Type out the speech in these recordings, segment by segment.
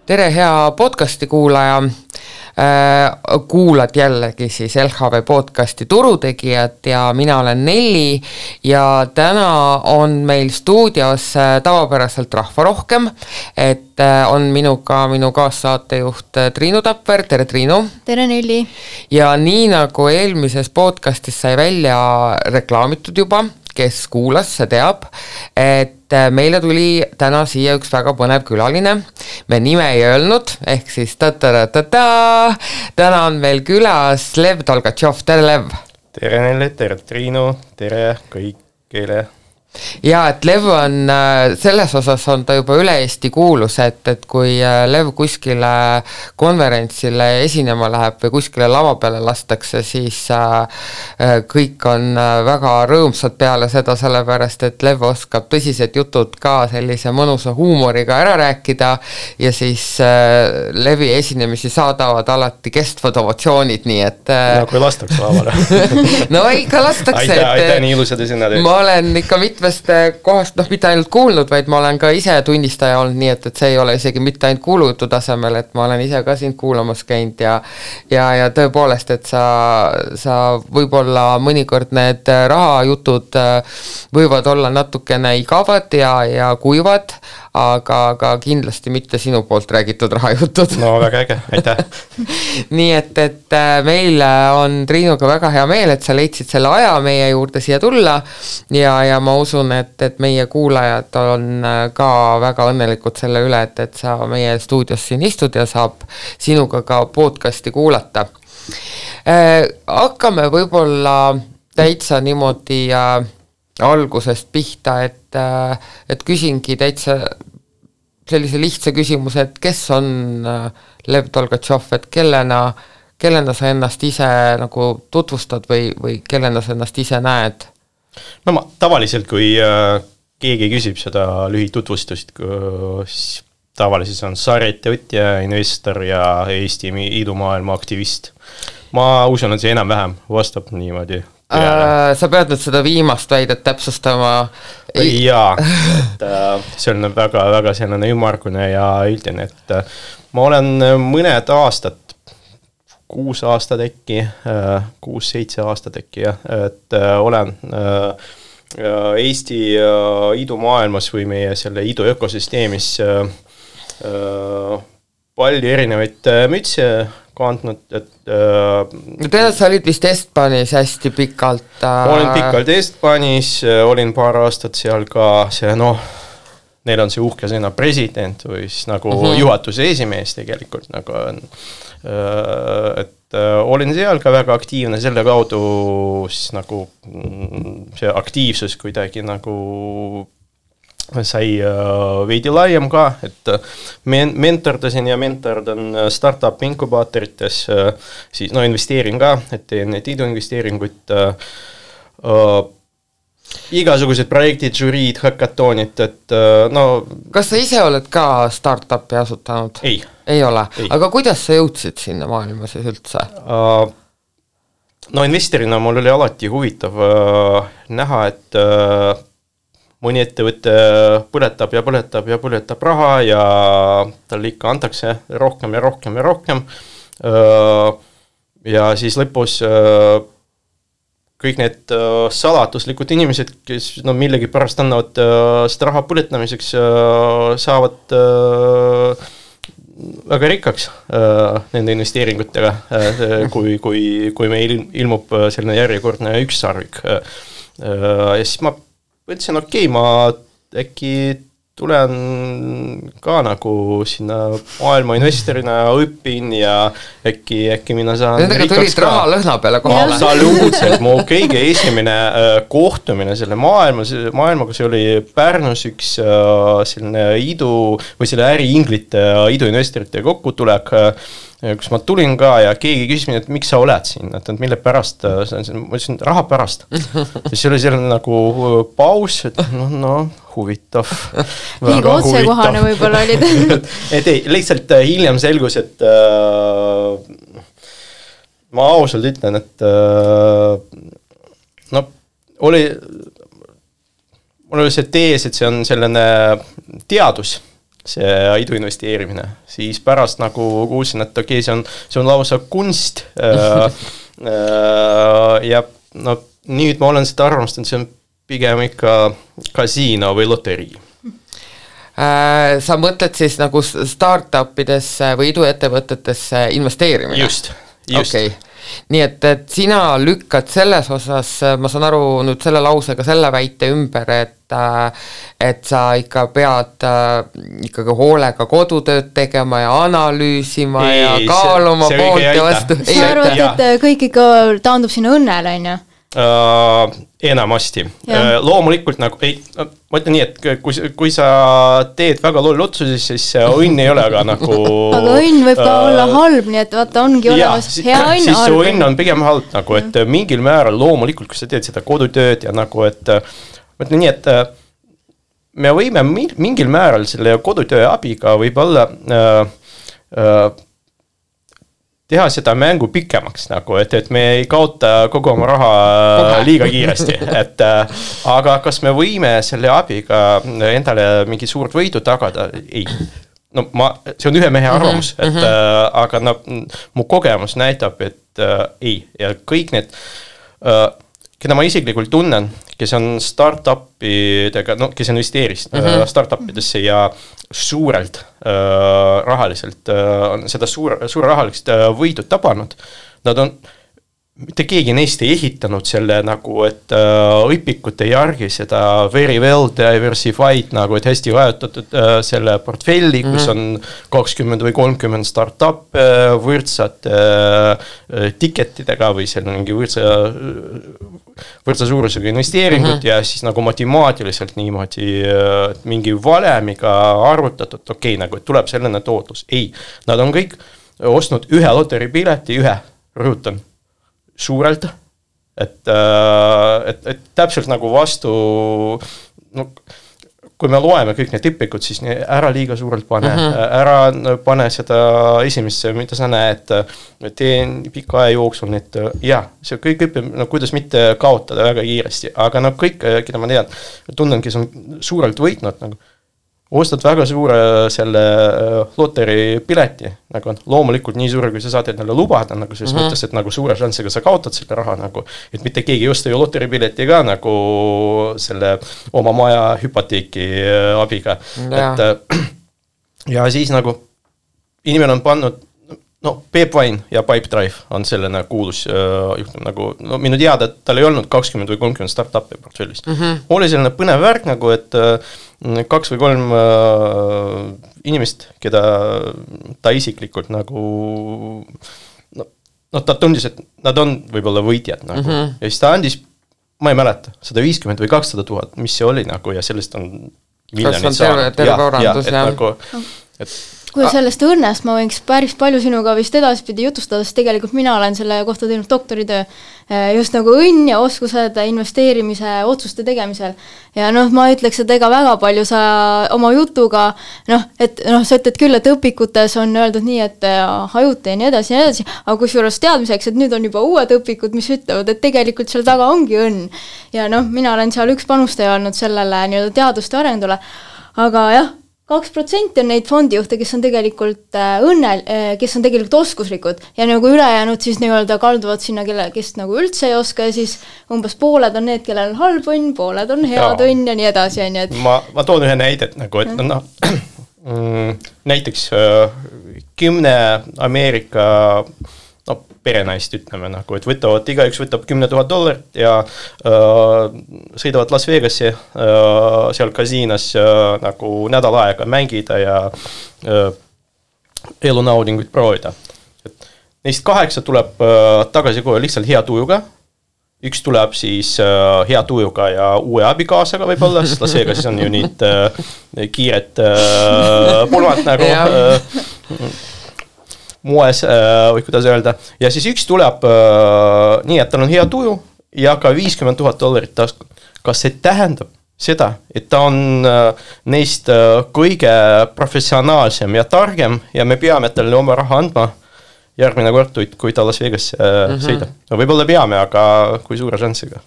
Tere hea podcasti kuulaja, kuulad jällegi siis LHV podcasti Turutegijad ja mina olen Nelli ja täna on meil stuudios tavapäraselt rahva rohkem, et on minuga minu kaassaatejuht Triinu Tapper, tere Triinu! Tere Nelli! Ja nii nagu eelmises podcastis sai välja reklaamitud juba, kes kuulas, see teab, et meile tuli täna siia üks väga põnev külaline. Me nime ei öelnud, ehk siis täna on meil külas Lev Tolgatšov. Tere Lev! Tere Nelli, tere Triinu, tere kõigile! Ja, et Lev on, selles osas on ta juba üle Eesti kuulus, et kui Lev kuskile konverentsile esinema läheb või kuskile lava peale lastakse, siis kõik on väga rõõmsad peale seda, sellepärast, et Lev oskab tõsised jutud ka sellise mõnusa huumoriga ära rääkida ja siis Levi esinemisi saadavad alati kestvad ovatsioonid, nii et... No kui lastakse lavale. No ikka lastakse. Aitäh, nii ilusad esinad. Ma olen ikka kohast, mitte ainult kuulnud, vaid ma olen ka ise tunnistaja olnud, nii et see ei ole isegi mitte ainult kuulujutu tasemel, et ma olen ise ka sind kuulamas käinud ja tõepoolest, et sa võib-olla mõnikord need rahajutud võivad olla natukene igavad ja kuivad, aga kindlasti mitte sinu poolt räägitud rahajutud. No väga äge, aitäh. Nii et meil on Triinuga väga hea meel, et sa leidsid selle aja meie juurde siia tulla ja ma usun, et meie kuulajad on ka väga õnnelikud selle üle, et sa meie stuudios siin istud ja saab sinuga ka podcasti kuulata. Hakkame võib-olla täitsa niimoodi algusest pihta, et küsingi täitsa sellise lihtsa küsimuse, et kes on Lev Tolgatšov, et kellena sa ennast ise nagu tutvustad või kellena sa ennast ise näed? No ma tavaliselt, kui keegi küsib seda lühitutvustust, siis tavaliselt on sarjaettevõtja, investor ja Eesti idumaailma aktivist. Ma usun, et see enam-vähem vastab niimoodi. Sa pead nüüd seda viimast väidet täpsustama. Jaa, et see on väga selline ümmargune ja üldine, et ma olen mõned aastad, 6 aastat äkki, 6-7 aastat äkki, et olen Eesti idumaailmas või meie selle idu ökosüsteemis palju erinevaid mütse kandnud, et sa olid vist Estbanis hästi pikalt. Olin pikalt Estbanis, olin paar aastat seal ka neil on see uhke sõna president või siis nagu juhatuse esimees tegelikult, nagu on, et olin seal ka väga aktiivne, selle kaudu siis nagu see aktiivsus kuidagi nagu sai veidi laiem ka, et mentordasin ja mentordan startup inkubaatorites, siis investeerin ka, et teen need iduinvesteeringuid, igasugused projektid, žüriid, hackatoonid, et Kas sa ise oled ka startupi asutanud? Ei ole? Ei. Aga kuidas sa jõudsid sinna maailma siis üldse? Investorina mul oli alati huvitav näha, et mõni ettevõte põletab raha ja talle ikka antakse rohkem ja rohkem ja rohkem. Ja siis lõpus kõik need salatuslikud inimesed, kes millegi pärast annavad seda raha põletamiseks, saavad väga rikkaks nende investeeringutega, kui meil ilmub selline järjekordne ükssarvik. Ja siis ma mõtlesin, ma äkki tulen ka nagu sinna maailma investorina õpin ja äkki mina saan nendega tulid raha lõhna peale kohale. Absoluutselt, mu kõige esimene kohtumine selle maailmaga, see oli Pärnus üks selline või selle äriinglite iduinvestorite kokkutulek, kus ma tulin ka ja keegi küsis mind, et miks sa oled siin, et mille pärast, ma ütlesin, raha pärast. See oli selline nagu paus, et huvitav. Liiga otsekohane võib-olla olid. Et ei, lihtsalt hiljem selgus, et ma ausalt ütlen, et mul oli see tees, et see on selline teadus, see idu investeerimine, siis pärast nagu kuulsin, et okei, see on lausa kunst ja no nüüd ma olen seda arvamust, et see on pigem ikka kasiino või loterii. Sa mõtled siis nagu startupidesse või iduettevõtetesse investeerimine? Just. Okay. Nii et sina lükkad selles osas, ma saan aru nüüd selle lausega selle väite ümber, et sa ikka pead ikkagi hoolega kodutööd tegema ja analüüsima ja kaaluma poolt ja vastu. Sa arvad, et kõik ikka taandub sinna õnnele, on ju? Enamasti. Loomulikult nagu, ma ütlen nii, et kui sa teed väga loll otsusi, siis õnn ei ole aga nagu... Aga õnn võib ka olla halb, nii et vaata, ongi olemas hea õnn. Siis su õnn on pigem halb, nagu, et mingil määral loomulikult, kui sa teed seda kodutööd ja nagu, et ma ütlen nii, et me võime mingil määral selle kodutöö abiga võib-olla teha seda mängu pikemaks, nagu, et me ei kaota kogu oma raha liiga kiiresti, aga kas me võime selle abiga endale mingi suurt võidu tagada? Ei. No see on ühe mehe arvamus, aga no, mu kogemus näitab, et ei. Ja kõik need, keda ma isiklikult tunnen, kes on startupidega, no kes investeeris startupidesse ja suurelt rahaliselt, seda suure rahaliselt võidud tabanud, nad on, mitte keegi neist ei ehitanud selle nagu, et õpikute järgi seda very well diversified, nagu, et hästi vajutatud selle portfelli, kus on 20 või 30 startup võrdsad tiketidega või seal mingi võrdsa suurusega investeeringut ja siis nagu matemaatiliselt niimoodi mingi valemiga arvutatud, okei, nagu, et tuleb selline tootlus. Ei, nad on kõik ostnud ühe loteripileti, rõhutan, suurelt, et täpselt nagu vastu, no, kui me loeme kõik need õpikud, siis ära liiga suurelt pane, ära pane seda esimesse, mida sa näed, teen pika aja jooksul, et jah, see kõik õpib, no kuidas mitte kaotada väga kiiresti, aga no kõik, keda ma tean, tunnen, kes on suurelt võitnud, nagu ostad väga suure selle loteri pileti, nagu loomulikult nii suure, kui sa saad endale lubada, nagu selles mõttes, et nagu suure šanssiga sa kaotad selle raha, nagu, et mitte keegi ei osta ju loteri pileti ka nagu selle oma maja hüpoteeki abiga. Ja siis nagu inimene on pannud, no Peep Vain ja Pipedrive on selline kuulus juhtum, nagu, no minu teada, et tal ei olnud 20 või 30 startupi portfellis. Oli selline põnev värk nagu, et 2 või 3 inimest, keda ta isiklikult nagu, no ta tundis, et nad on võib-olla võitjad nagu. Ja siis ta andis, ma ei mäleta, 150 või 200 000, mis see oli nagu ja sellest on miljonid saanud. Kui sellest õnnest ma võiks päris palju sinuga vist edaspidi jutustada, sest tegelikult mina olen selle kohta teinud doktoritöö just nagu õnn ja oskused investeerimise otsuste tegemisel. Ja noh, ma ütleks, et ega väga palju sa oma jutuga, sa ütled küll, et õpikutes on öeldud nii, et hajuta ja nii edasi, aga kusjuures teadmiseks, et nüüd on juba uued õpikud, mis ütlevad, et tegelikult seal taga ongi õnn. Ja noh, mina olen seal üks panustaja olnud sellele nii-öelda teaduste arendule, aga jah, 2% on neid fondijuhte, kes on tegelikult kes on tegelikult oskuslikud ja nagu ülejäänud siis nii-öelda kalduvad sinna, kes nagu üldse ei oska ja siis umbes pooled on need, kellel on halb õnn, pooled on head õnn ja nii edasi. Ma toon ühe näidet, nagu, et näiteks 10 Ameerika perenaist ütleme, nagu, et igaüks võtab $10,000 ja sõidavad Las Vegasse seal kasiinas nagu nädal aega mängida ja elunaudinguid proovida. Et neist 8 tuleb tagasi kohe lihtsalt hea tujuga, üks tuleb siis hea tujuga ja uue abikaasaga võib-olla, sest Las Vegasis on ju nüüd kiired pulmad nagu moes, või kuidas öelda. Ja siis üks tuleb nii, et tal on hea tuju ja ka $50,000 tasku. Kas see tähendab seda, et ta on neist kõige professionaalsem ja targem ja me peame talle oma raha andma järgmine kord, kui ta Las Vegas sõidab. No võib-olla peame, aga kui suure šanssiga?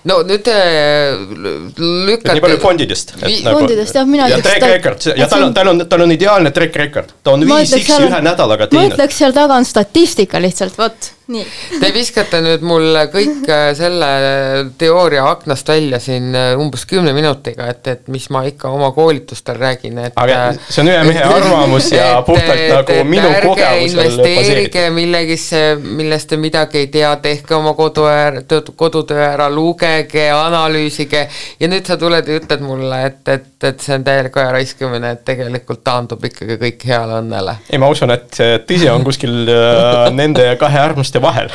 no nüüd lükata... Nii palju fondidest. Fondidest, jah, mina ja track record, ja tal on ideaalne track record. Ta on 5x ühe nädalaga teinud. Ma ütleks seal taga on statistika lihtsalt, võt, nii. Te viskate nüüd mul kõik selle teooria aknast välja siin umbes 10 minutiga, et mis ma ikka oma koolitustel räägin. Aga see on ühe mehe arvamus ja puhtalt nagu minu kogemusel investeerige millegisse, millest te midagi ei tea, tehke oma kodutöö ära, lugege, analüüsige ja nüüd sa tuled ja ütled mulle, et see on täielik aja raiskamine, et tegelikult taandub ikkagi kõik heale õnnele. Ei, ma usun, et tõsi on kuskil nende kahe äärmuste vahel.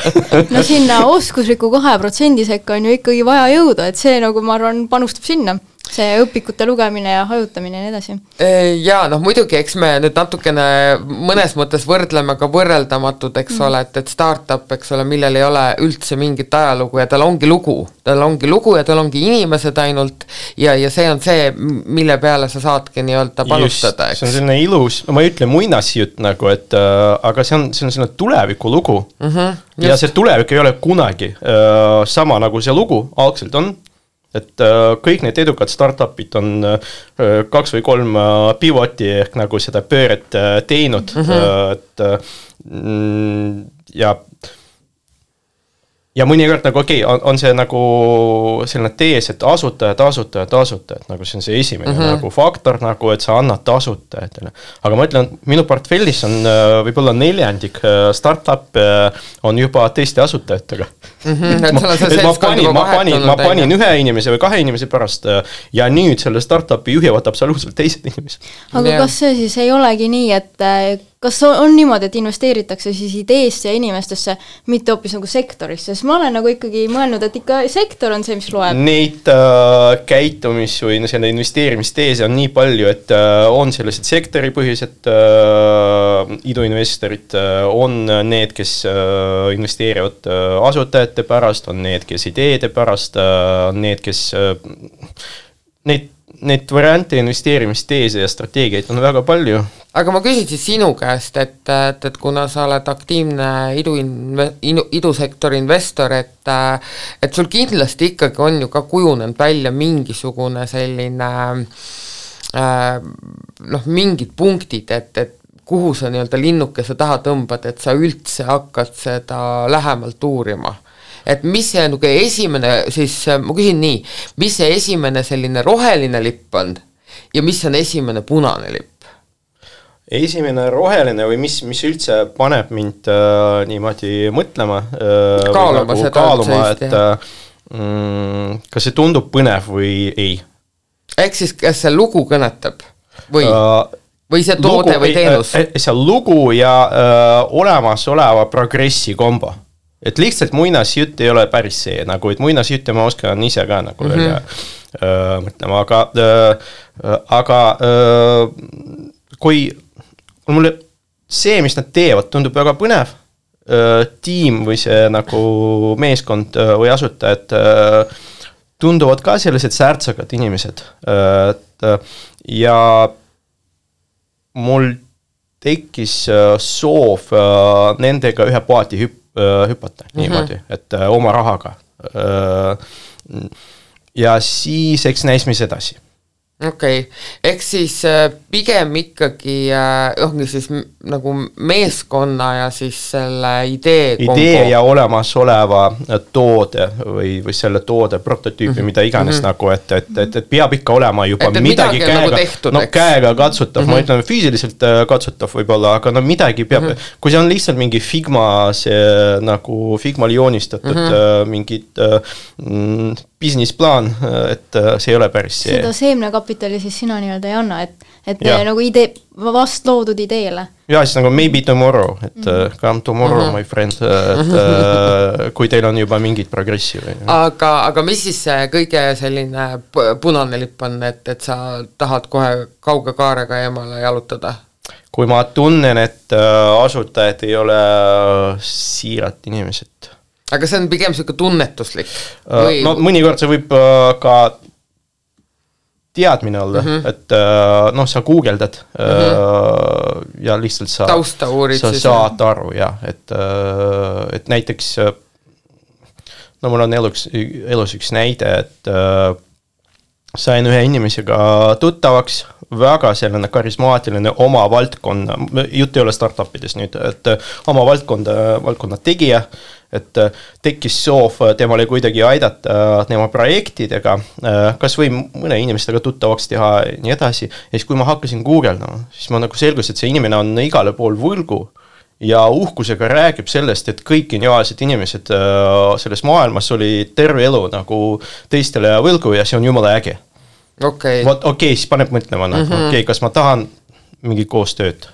No sinna oskusliku 2% sekka on ju ikkagi vaja jõuda, et see nagu ma arvan panustab sinna. See õpikute lugemine ja hajutamine ja nii edasi. Jaa, noh muidugi, eks me nüüd natukene mõnes mõttes võrdleme ka võrreldamatud, eks ole, et startup, eks ole, millel ei ole üldse mingit ajalugu ja tal ongi lugu ja tal ongi inimesed ainult ja see on see, mille peale sa saadki nii-öelda panustada. Just, see on selline ilus, ma ei ütle muinasjutt nagu, et aga see on selline tuleviku lugu ja see tulevik ei ole kunagi sama nagu see lugu algselt on. Et kõik need edukad startupid on 2 või 3 pivoti ehk nagu seda pööret teinud. Et, ja mõnikord nagu okei, on see nagu selline tees, et asutajad, nagu see on see esimene nagu faktor, nagu et sa annad asutajatele. Aga ma ütlen, minu portfellis on võib-olla 4 startup on juba teiste asutajatega. Ma panin 1 inimese või 2 inimese pärast ja nüüd selle startupi juhivad absoluutselt teised inimesed. Aga kas see siis ei olegi nii, et kas on niimoodi, et investeeritakse siis ideesse ja inimestesse, mitte hoopis nagu sektorisse? Sest ma olen nagu ikkagi mõelnud, et ikka sektor on see, mis loeb. Neid käitumis või selle investeerimisteese on nii palju, et on sellised sektoripõhised iduinvestorid, on need, kes investeerivad asutajate pärast, on need, kes ideede pärast, on need, kes neid variante investeerimisteese ja strateegiaid on väga palju. Aga ma küsin siis sinu käest, et kuna sa oled aktiivne idusektori investor, et sul kindlasti ikkagi on ju ka kujunenud välja mingisugune selline mingid punktid, et kuhu sa nii-öelda linnukese taha tõmbad, et sa üldse hakkad seda lähemalt uurima. Et mis see nagu esimene, siis ma küsin nii, mis see esimene selline roheline lipp on ja mis on esimene punane lipp? Esimene roheline või mis üldse paneb mind niimoodi mõtlema, kaaluma, et kas see tundub põnev või ei. Ehk siis kas see lugu kõnetab või see toode või teenus? See lugu ja olemasoleva progressi kombo. Et lihtsalt muinasjutt ei ole päris see, nagu et muinasjutte ma oskan ise ka nagu mõtlema, aga kui mulle see, mis nad teevad, tundub väga põnev, tiim või see nagu meeskond või asutajad tunduvad ka sellised särtsakad inimesed ja mul tekkis soov nendega ühe paati hüpata niimoodi, et oma rahaga. Ja siis eks näis mis edasi. Okei, ehk siis pigem ikkagi siis nagu meeskonna ja siis selle idee ja olemasoleva toode või selle toode prototüüpi, mida iganes nagu, et peab ikka olema juba midagi käega katsutav, ma ütlen füüsiliselt katsutav võib-olla, aga midagi peab, kui see on lihtsalt mingi Figmal joonistatud mingid business-plaan, et see ei ole päris see. Seda seemnekapitali siis sina nii-öelda ei anna, et nagu vast loodud ideele. Ja siis nagu maybe tomorrow, et come tomorrow, my friend, et kui teil on juba mingid progressi. Või. Aga mis siis see kõige selline punane lipp on, et sa tahad kohe kauge kaarega eemale jalutada? Kui ma tunnen, et asutajad ei ole siirat inimesed. Aga see on pigem selline tunnetuslik? No mõnikord see võib ka teadmine olla, et sa guugeldad ja lihtsalt sa saad aru, jah, et näiteks no mul on elus üks näide, et sain ühe inimesega tuttavaks, väga selline karismaatiline oma valdkonna, jutt ei ole startupides nüüd, et oma valdkonna tegija, et tekkis soov temale kuidagi aidata tema projektidega, kas või mõne inimestega tuttavaks teha ja nii edasi. Ja siis kui ma hakkasin guugeldama, siis ma nagu selgus, et see inimene on igale pool võlgu ja uhkusega räägib sellest, et kõik geniaalsed inimesed selles maailmas oli terve elu nagu teistele võlgu ja see on jumala äge. Okay. Okei, siis paneb mõtlema, okei, kas ma tahan mingi koostööd.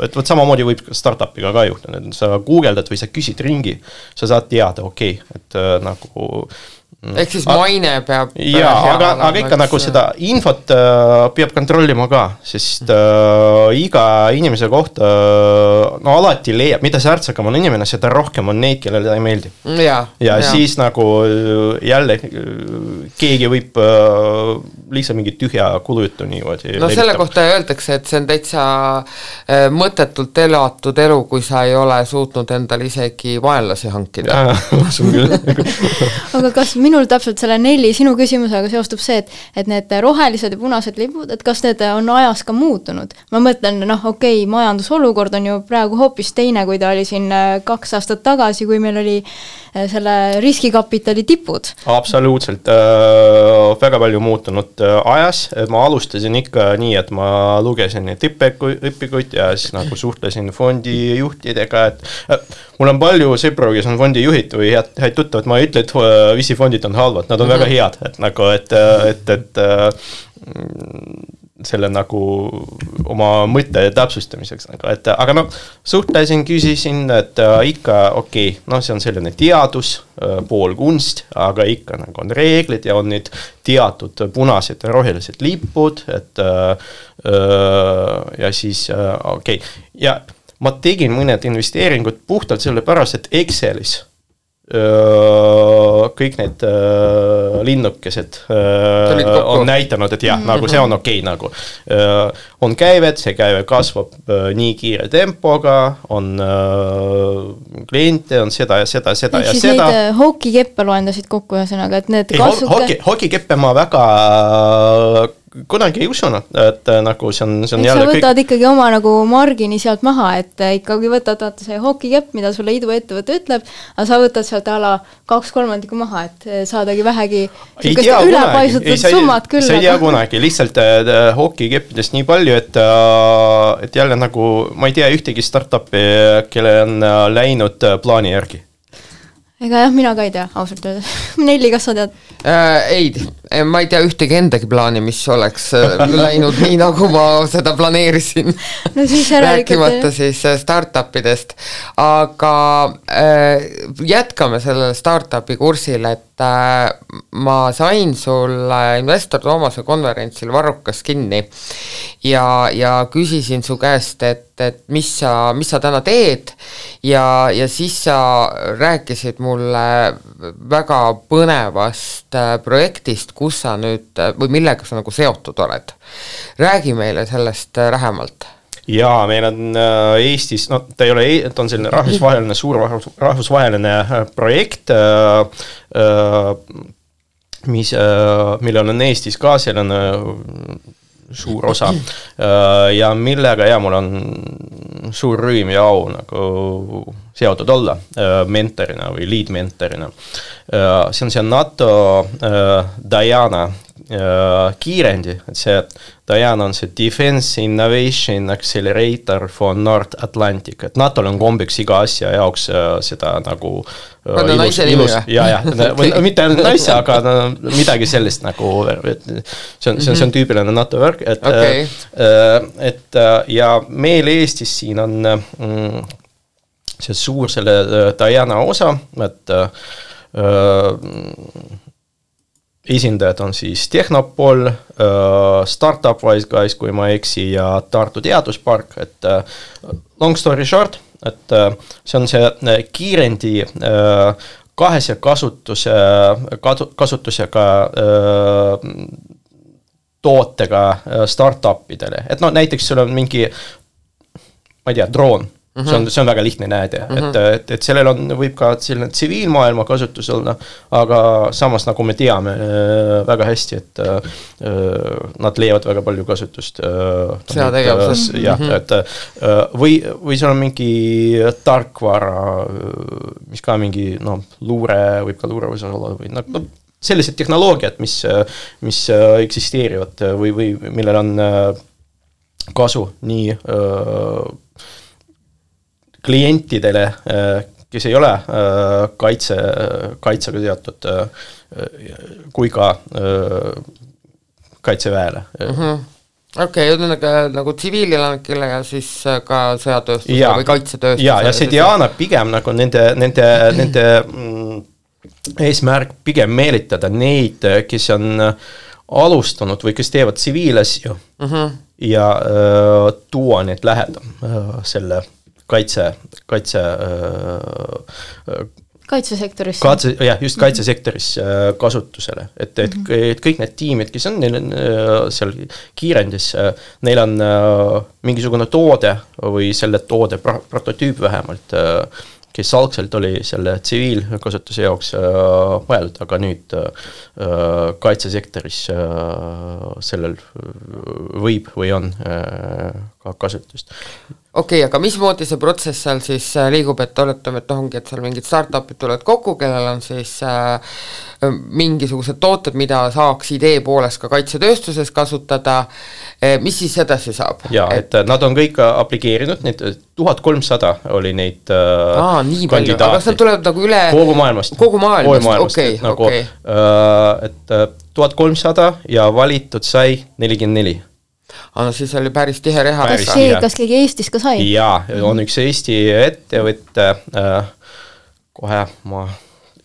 Et võt samamoodi võib startupiga ka juhtuda, et sa guugeldad või sa küsid ringi, sa saad teada, okei, et nagu ehk siis maine peab aga ikka nagu seda infot peab kontrollima ka, sest iga inimese kohta no alati leiab, mida särtsakam on inimene, seda rohkem on neid, kellele ta ei meeldi. Ja siis nagu jälle keegi võib lihtsalt mingi tühja kulujutu niimoodi no selle kohta öeldakse, et see on täitsa mõttetult elatud elu, kui sa ei ole suutnud endale isegi vaenlasi hankida. Aga kas minul täpselt selle Nelli sinu küsimusega seostub see, et need rohelised ja punased lipud, et kas need on ajas ka muutunud? Ma mõtlen, okei, majandusolukord on ju praegu hoopis teine, kui ta oli siin 2 aastat tagasi, kui meil oli selle riskikapitali tipud. Absoluutselt, väga palju muutunud ajas. Ma alustasin ikka nii, et ma lugesin neid õpikuid ja siis nagu suhtlesin fondijuhtidega, et mul on palju sõpru, kes on fondijuhid või häid tuttavad, ma ei ütle, et VC-fondid on halvad, nad on väga head, et nagu, et selle nagu oma mõtte täpsustamiseks, aga suhtlesin, küsisin, et ikka okei, see on selline teadus, pool kunst, aga ikka nagu on reeglid ja on need teatud punased ja rohelised lipud, et ja siis okei. Ja ma tegin mõned investeeringud puhtalt selle pärast, et Excelis kõik need linnukesed on näitanud, et jah, nagu see on okei, nagu on käivet, see käive kasvab nii kiire tempoga, on kliente, on seda ja seda ja seda. Siis neid hokikeppe loendasid kokku ühesõnaga, et need kasvuke... Hokikeppe ma väga kunagi ei usunud, et nagu see on jälle sa võtad ikkagi oma nagu margini sealt maha, et ikkagi võtad see hokikepp, mida sulle iduettevõte ütleb, aga sa võtad sealt ala 2/3 maha, et saadagi vähegi ülepaisutud summad küll. See ei tea kunagi, lihtsalt hokikeppidest nii palju, et jälle nagu, ma ei tea ühtegi startupi, kelle on läinud plaani järgi. Ega jah, mina ka ei tea, ausalt öeldes. Nelli, kas sa tead? Ei, ma ei tea ühtegi endagi plaani, mis oleks läinud nii, nagu ma seda planeerisin. No siis rääkimata siis startupidest. Aga jätkame sellele startupi kursil, et ma sain sulle Investor Toomase konverentsil Varrukas kinni ja küsisin su käest, et mis sa täna teed ja siis sa rääkisid mulle väga põnevast projektist, kus sa nüüd või millega sa nagu seotud oled. Räägi meile sellest lähemalt. Jaa, meil on Eestis, ta ei ole, ta on selline rahvusvaheline, suur rahvusvaheline projekt, millel on Eestis ka selline suur osa ja millega mul on suur rõõm ja au nagu seotud olla mentorina või lead mentorina. See on see NATO Diana kiirendi, et see Diana on see Defense Innovation Accelerator for North Atlantic, et NATO-l on kombeks iga asja jaoks seda nagu ilus, mitte naise, aga midagi sellist nagu, see on tüüpiline NATO värk, et ja meil Eestis siin on see suur selle Diana osa, et esindajad on siis Tehnopol, Startup Wise Guys, kui ma eksi, ja Tartu Teaduspark, et long story short, et see on see kiirendi kahese kasutusega tootega startupidele, et näiteks sul on mingi, ma ei tea, droon, see on väga lihtne näide, et sellel võib ka selline tsiviilmaailma kasutus olla, aga samas nagu me teame väga hästi, et nad leiavad väga palju kasutust. Sõjategevuses. Jah, et või seal on mingi tarkvara, mis ka mingi luure, võib ka luure võisa olla või sellised tehnoloogiad, mis eksisteerivad või millel on kasu nii klientidele, kes ei ole kaitsega seotud, kui ka kaitseväele. Okei, nagu tsiviilelanikele ja siis ka sõjatööstusele või kaitsetööstusele. Ja see Diana pigem nagu nende eesmärk pigem meelitada neid, kes on alustanud või kes teevad tsiviilasju ja tuua need lähedam selle kaitsesektoris. Just kaitsesektoris kasutusele. Et kõik need tiimid, kes on neil seal kiirendis, neil on mingisugune toode või selle toode prototüüp vähemalt, kes algselt oli selle tsiviilkasutuse jaoks vajalik, aga nüüd kaitsesektoris sellel võib või on ka kasutust. Okei, aga mismoodi see protsess seal siis liigub, et oletame, et ongi, et seal mingid startupid tulevad kokku, kellel on siis mingisugused tooted, mida saaks idee poolest ka kaitsetööstuses kasutada, mis siis edasi saab? Jaa, et nad on kõik aplikeerinud, need 1300 oli neid nii palju, aga kas nad tulevad nagu üle kogu maailmast, okei. Et 1300 ja valitud sai 44. No siis oli päris tihe reha. Kas keegi Eestis ka sai? Jaa, on üks Eesti ettevõtte, kohe ma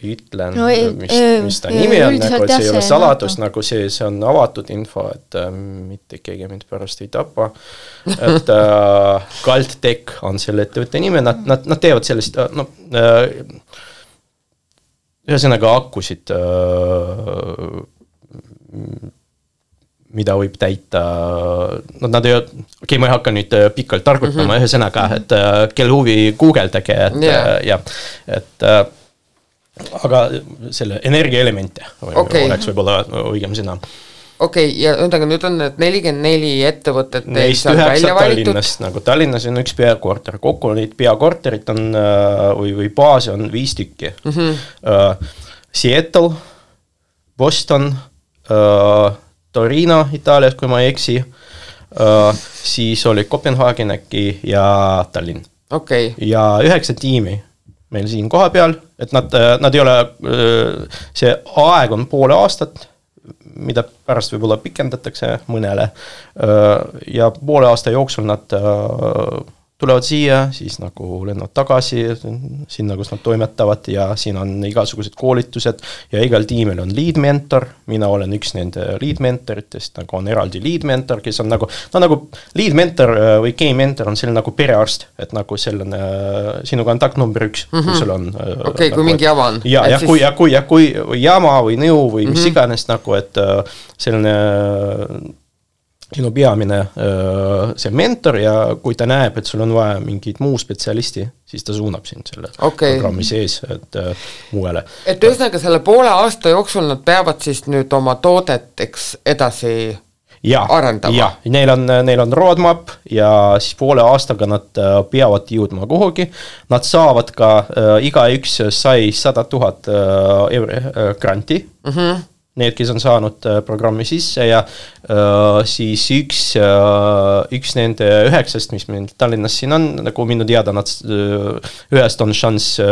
ütlen, mis ta nimi on, nagu see ei ole saladus, nagu see on avatud info, et mitte keegi mind pärast ei tapa, et Galtech on selle ettevõtte nime, nad teevad sellist, ühesõnaga akkusid, mida võib täita, nad ei ole, ma ei hakka nüüd pikalt targutama ühesõnaga, et kel huvi guugeldage, et aga selle energiaelemente oleks võib-olla õigem sõna. Okei, ja nüüd on need 44 ettevõtted neist 9 Tallinnast, nagu Tallinnas on üks peakorter, kokku neid peakorterit on või baasi on 5 tükki. Seattle, Boston, Torino Itaalias, kui ma ei eksi, siis oli Kopenhagen äkki ja Tallinn. Ja 9 tiimi meil siin koha peal, et nad ei ole, see aeg on poole aastat, mida pärast võib-olla pikendatakse mõnele, ja poole aasta jooksul nad tulevad siia, siis nagu lennavad tagasi sinna, kus nad toimetavad ja siin on igasugused koolitused ja igal tiimil on lead mentor, mina olen üks nende lead mentoritest, nagu on eraldi lead mentor, kes on nagu lead mentor või game mentor on selline nagu perearst, et nagu selline sinu kontakt number 1, kui sul on kui mingi jama on. Kui jama või nõu või mis iganes nagu, et selline sinu peamine see mentor ja kui ta näeb, et sul on vaja mingit muu spetsialisti, siis ta suunab sind selle programmi sees, et muuele. Et ühesõnaga selle poole aasta jooksul nad peavad siis nüüd oma toodet edasi arendama? Jah, neil on roadmap ja siis poole aastaga nad peavad jõudma kuhugi. Nad saavad ka, igaüks sai 100 000 euri granti. Need, kes on saanud programmi sisse ja siis üks nende 9, mis meil Tallinnas siin on, nagu minu teada, nad ühest on šanss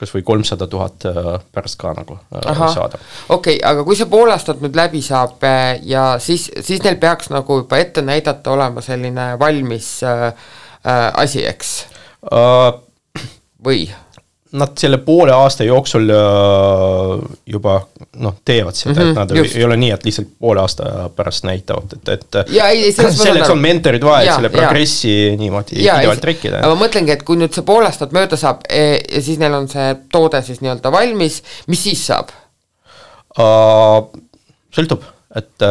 kas või 300 000 pärast ka nagu saada. Okei, aga kui see pool aastat nüüd läbi saab ja siis neil peaks nagu juba ette näidata olema selline valmis asi, eks? Või? Nad selle poole aasta jooksul juba teevad seda, et nad ei ole nii, et lihtsalt poole aasta pärast näitavad, et selleks on mentorid vaja, selle progressi niimoodi pidevalt trekkida. Ma mõtlengi, et kui nüüd see poole aastat mööda saab ja siis neil on see toode siis nii-öelda valmis, mis siis saab? Sõltub. et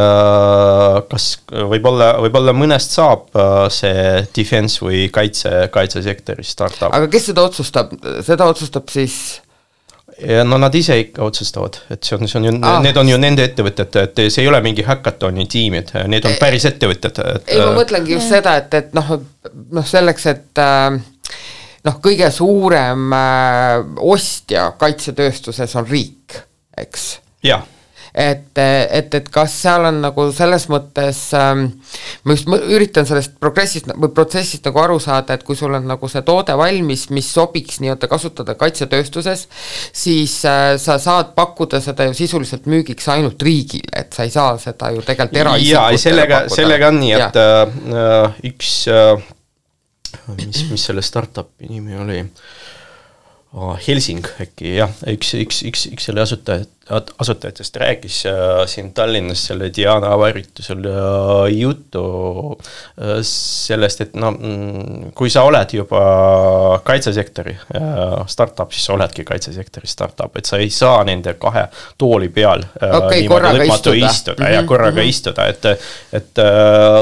kas võib-olla mõnest saab see defense või kaitsesektori startup. Aga kes seda otsustab? Seda otsustab siis... Ja no nad ise ikka otsustavad, et see on ju, need on ju nende ettevõtted, et see ei ole mingi hackatoni tiimid, need on päris ettevõtted. Ei, ma mõtlengi just seda, et selleks, et kõige suurem ostja kaitsetööstuses on riik, eks? Jah. Et kas seal on nagu selles mõttes, ma just üritan sellest protsessist nagu aru saada, et kui sul on nagu see toode valmis, mis sobiks nii-öelda kasutada kaitsetööstuses, siis sa saad pakkuda seda ju sisuliselt müügiks ainult riigile, et sa ei saa seda ju tegelikult eraisikutele pakkuda. Sellega on nii, et üks, mis selle startupi nimi oli? Helsing äkki, jah, üks selle asutajatest rääkis siin Tallinnas selle Diana avaritusel juttu sellest, et kui sa oled juba kaitsesektori startup, siis sa oledki kaitsesektori startup, et sa ei saa nende kahe tooli peal korraga istuda. Ja korraga istuda, et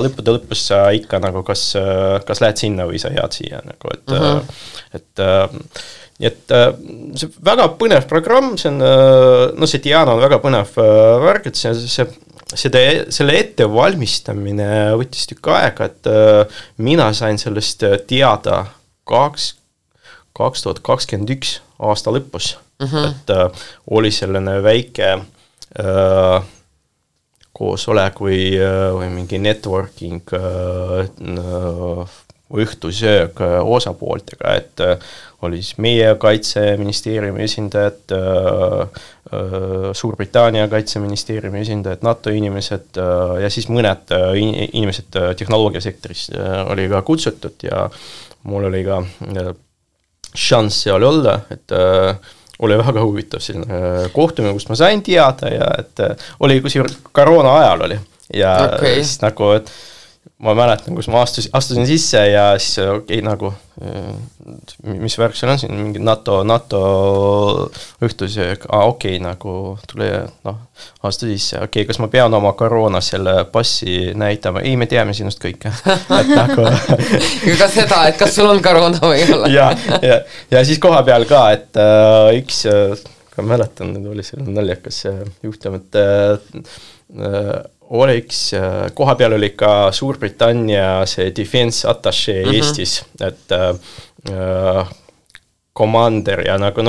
lõppude lõpus sa ikka nagu kas lähed sinna või sa jääd siia nagu, et nii et see väga põnev programm, see on, see Diana on väga põnev värk, et selle ettevalmistamine võttis tükk aega, et mina sain sellest teada 2021 aasta lõpus, et oli selline väike koosolek või mingi networking õhtusöög osapooltega, et oli siis meie kaitseministeeriumi esindajad, Suurbritannia kaitseministeeriumi esindajad, NATO inimesed ja siis mõned inimesed tehnoloogiasektoris oli ka kutsutud ja mul oli ka šanss seal olla, et oli väga huvitav selline kohtumine, kust ma sain teada ja et oli koroona ajal oli ja siis nagu, et ma mäletan, kus ma astusin sisse ja siis nagu, mis värk seal on siin, mingi NATO õhtusöög, nagu tule, astu sisse, kas ma pean oma koroona selle passi näitama, ei, me teame sinust kõike. Et nagu ka seda, et kas sul on koroona või ei ole. ja siis koha peal ka, et üks, ka mäletan, oli selline naljakas juhtum, et oleks, koha peal oli ka Suurbritannia see defense attaché Eestis, et commander ja nagu,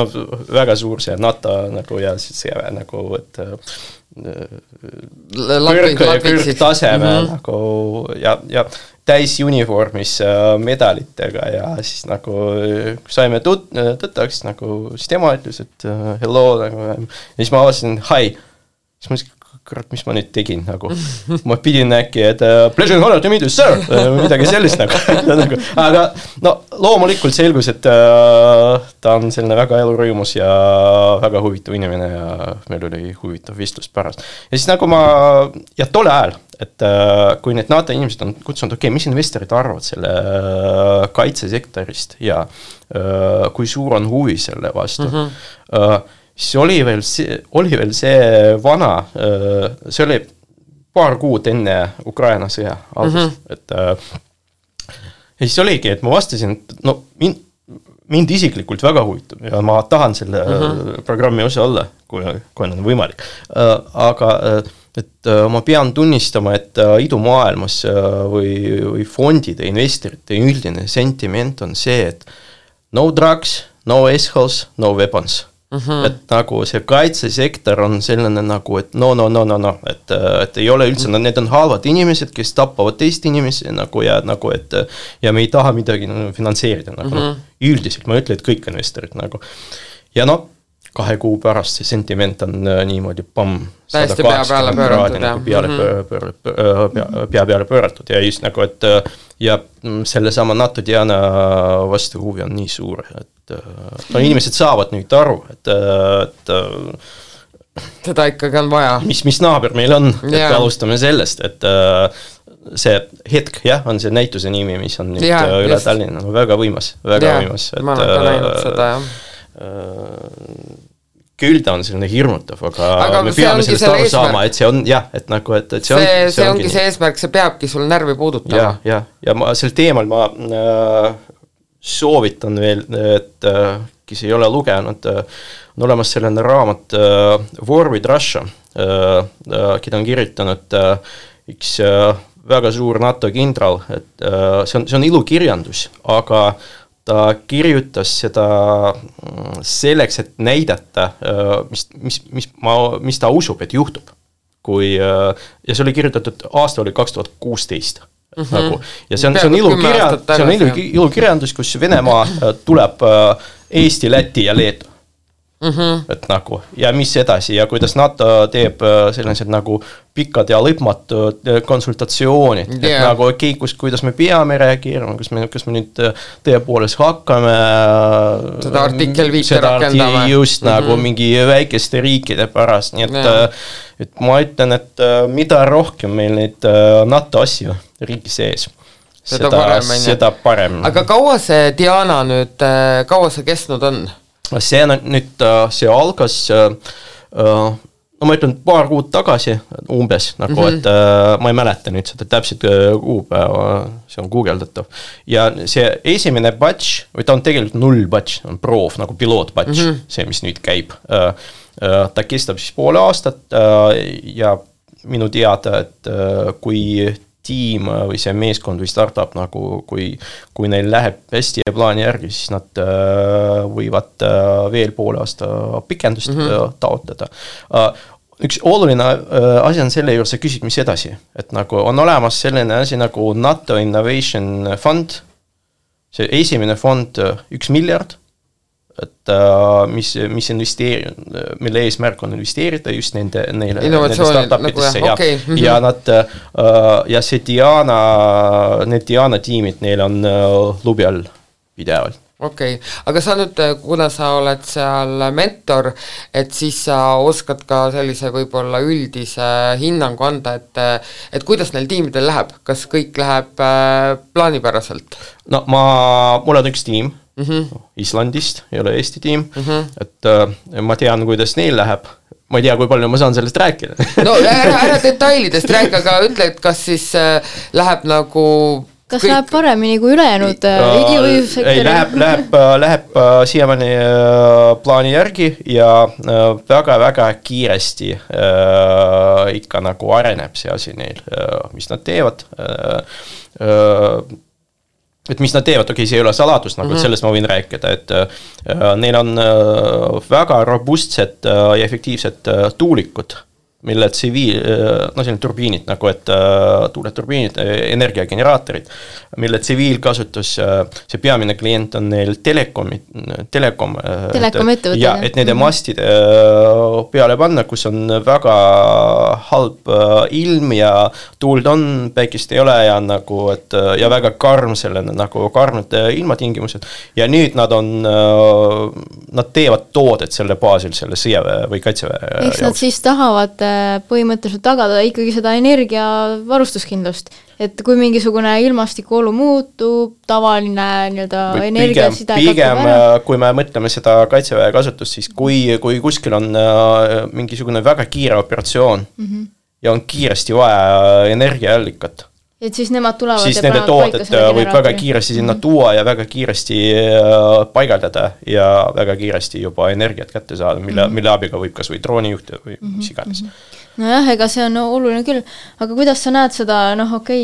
väga suur see NATO nagu ja see nagu, et kõrgtaseme nagu ja täis uniformis medalitega ja siis nagu saime tõttaks, nagu siis tema ütles, et hello, nagu, ja siis ma avasin, hi, siis ma kurat, mis ma nüüd tegin, nagu ma pidin äkki, et pleasure and honor to meet you, sir, midagi sellist nagu. Aga loomulikult selgus, et ta on selline väga elurõimus ja väga huvitav inimene ja meil oli huvitav vestlus pärast. Ja siis nagu ja tole ajal, et kui need NATO inimesed on kutsunud, mis investorid arvavad selle kaitsesektorist ja kui suur on huvi selle vastu, siis oli veel see vana, see oli paar kuud enne Ukraina sõja algust, et ja siis oligi, et ma vastasin, et mind isiklikult väga huvitab ja ma tahan selle programmi osa olla, kui on võimalik, aga et ma pean tunnistama, et idumaailmas või fondide, investorite üldine sentiment on see, et no drugs, no assholes, no weapons. Et nagu see kaitsesektor on selline nagu, et et ei ole üldse, need on halvad inimesed, kes tappavad teist inimesi nagu ja nagu, et ja me ei taha midagi finantseerida nagu, üldiselt ma ütlen, et kõik investorid nagu ja 2 kuu pärast see sentiment on niimoodi täiesti pea peale pööratud ja just nagu, et ja sellesama NATO Diana vastu huvi on nii suur, et inimesed saavad nüüd aru, et seda ikkagi on vaja. Mis naaber meil on, et alustame sellest, et see hetk, on see näituse nimi, mis on nüüd üle Tallinna, väga võimas, väga võimas. Ma olen ka näinud seda, küll ta on selline hirmutav, aga me peame sellest aru saama, et see on jah, et nagu, et see ongi see eesmärk, see peabki sul närvi puudutama. Ja ma sel teemal ma soovitan veel, et kes ei ole lugenud, on olemas selline raamat War with Russia, keda on kirjutanud üks väga suur NATO kindral, et see on ilukirjandus, aga ta kirjutas seda selleks, et näidata, mis ta usub, et juhtub. Ja see oli kirjutatud, aasta oli 2016. Nagu. Ja see on ilukirjandus, kus Venemaa tuleb Eesti, Läti ja Leedu. Et nagu, ja mis edasi ja kuidas NATO teeb sellised nagu pikad ja lõpmatud konsultatsioonid, et nagu kuidas me peame reageerima, kas me nüüd tõepoolest hakkame seda artikkel 5 rakendama just nagu mingi väikeste riikide pärast, nii et ma ütlen, et mida rohkem meil neid NATO asju riigi sees, seda parem. Aga kaua see Diana nüüd, kaua see kestnud on? See on nüüd, see algas, no ma ütlen paar kuud tagasi umbes, nagu, et ma ei mäleta nüüd seda täpselt kuupäeva, see on guugeldatav. Ja see esimene batch, või ta on tegelikult 0 batch, on proov, nagu piloot batch, see, mis nüüd käib. Ta kestab siis poole aastat ja minu teada, et kui tiim või see meeskond või startup, nagu kui neil läheb hästi ja plaani järgi, siis nad võivad veel poole aasta pikendust taotleda. Üks oluline asi on selle juures, sa küsid, mis edasi. Et nagu on olemas selline asi nagu NATO Innovation Fund, see esimene fond 1 miljard, et mis mille eesmärk on investeerida just nende startupidesse nagu, ja nad ja see need Diana tiimid, neil on lubi all pidevalt. Aga sa nüüd, kuna sa oled seal mentor, et siis sa oskad ka sellise võib-olla üldise hinnangu anda, et kuidas neil tiimidel läheb, kas kõik läheb plaanipäraselt? No mul on üks tiim, Islandist, ei ole Eesti tiim, et ma tean, kuidas neil läheb. Ma ei tea, kui palju ma saan sellest rääkida. No ära detailidest rääk, aga ütle, et kas siis läheb nagu... Kas läheb paremini kui ülejäänud sektori? Läheb siiamaani plaani järgi ja väga-väga kiiresti ikka nagu areneb see asi neil, mis nad teevad. Et mis nad teevad, see ei ole saladus, nagu sellest ma võin rääkida, et neil on väga robustsed ja efektiivsed tuulikud, mille selline turbiinid, nagu et tuuleturbiinid, energiageneraatorid, mille tsiviilkasutus, see peamine klient on neil telekom ettevõtted. Ja, et nende mastide peale panna, kus on väga halb ilm ja tuuld on, päikest ei ole ja nagu, et ja väga karm selline, nagu karmid ilmatingimused. Ja nüüd nad teevad toodet selle baasil, selle sõjaväe või kaitseväe. Eks nad siis tahavad põhimõtteliselt tagada ikkagi seda energiavarustuskindlust, et kui mingisugune ilmastikuolu muutub, tavaline energiaside pigem, kui me mõtleme seda kaitseväe kasutust, siis kui kuskil on mingisugune väga kiire operatsioon ja on kiiresti vaja energiaallikat, et siis nemad tulevad siis nende toodet võib väga kiiresti sinna tuua ja väga kiiresti paigaldada ja väga kiiresti juba energiat kätte saada, mille abiga võib kas või droonijuhte või mis iganes. Nojah, ega see on oluline küll, aga kuidas sa näed seda,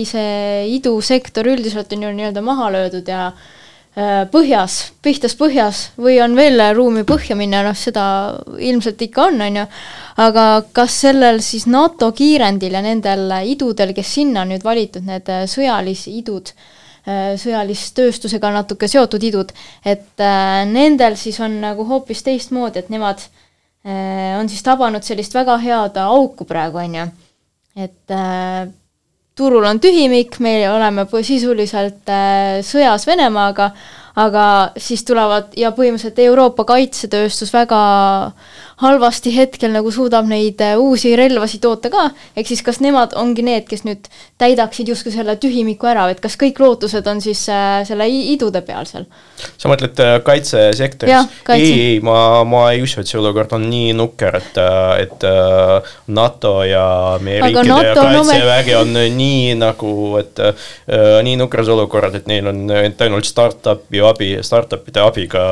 see idusektor üldiselt on ju nii-öelda maha löödud ja pihtas põhjas või on veel ruumi põhja minna, seda ilmselt ikka on, aga kas sellel siis NATO kiirendil ja nendel idudel, kes sinna on nüüd valitud, need sõjalisidud, sõjalistööstusega natuke seotud idud, et nendel siis on nagu hoopis teistmoodi, et nemad on siis tabanud sellist väga head auku praegu, et turul on tühimik, me oleme sisuliselt sõjas Venemaaga, aga siis tulevad ja põhimõtteliselt Euroopa kaitsetööstus väga halvasti hetkel nagu suudab neid uusi relvasi toota ka, ehk siis kas nemad ongi need, kes nüüd täidaksid justkui selle tühimiku ära, et kas kõik lootused on siis selle idude peal seal? Sa mõtled kaitsesektoris? Ei, ma ei usu, et see olukord on nii nukker, et NATO ja meie riikide ja kaitsevägi on nii nagu, et nii nukras olukorrad, et neil on ainult startupide abiga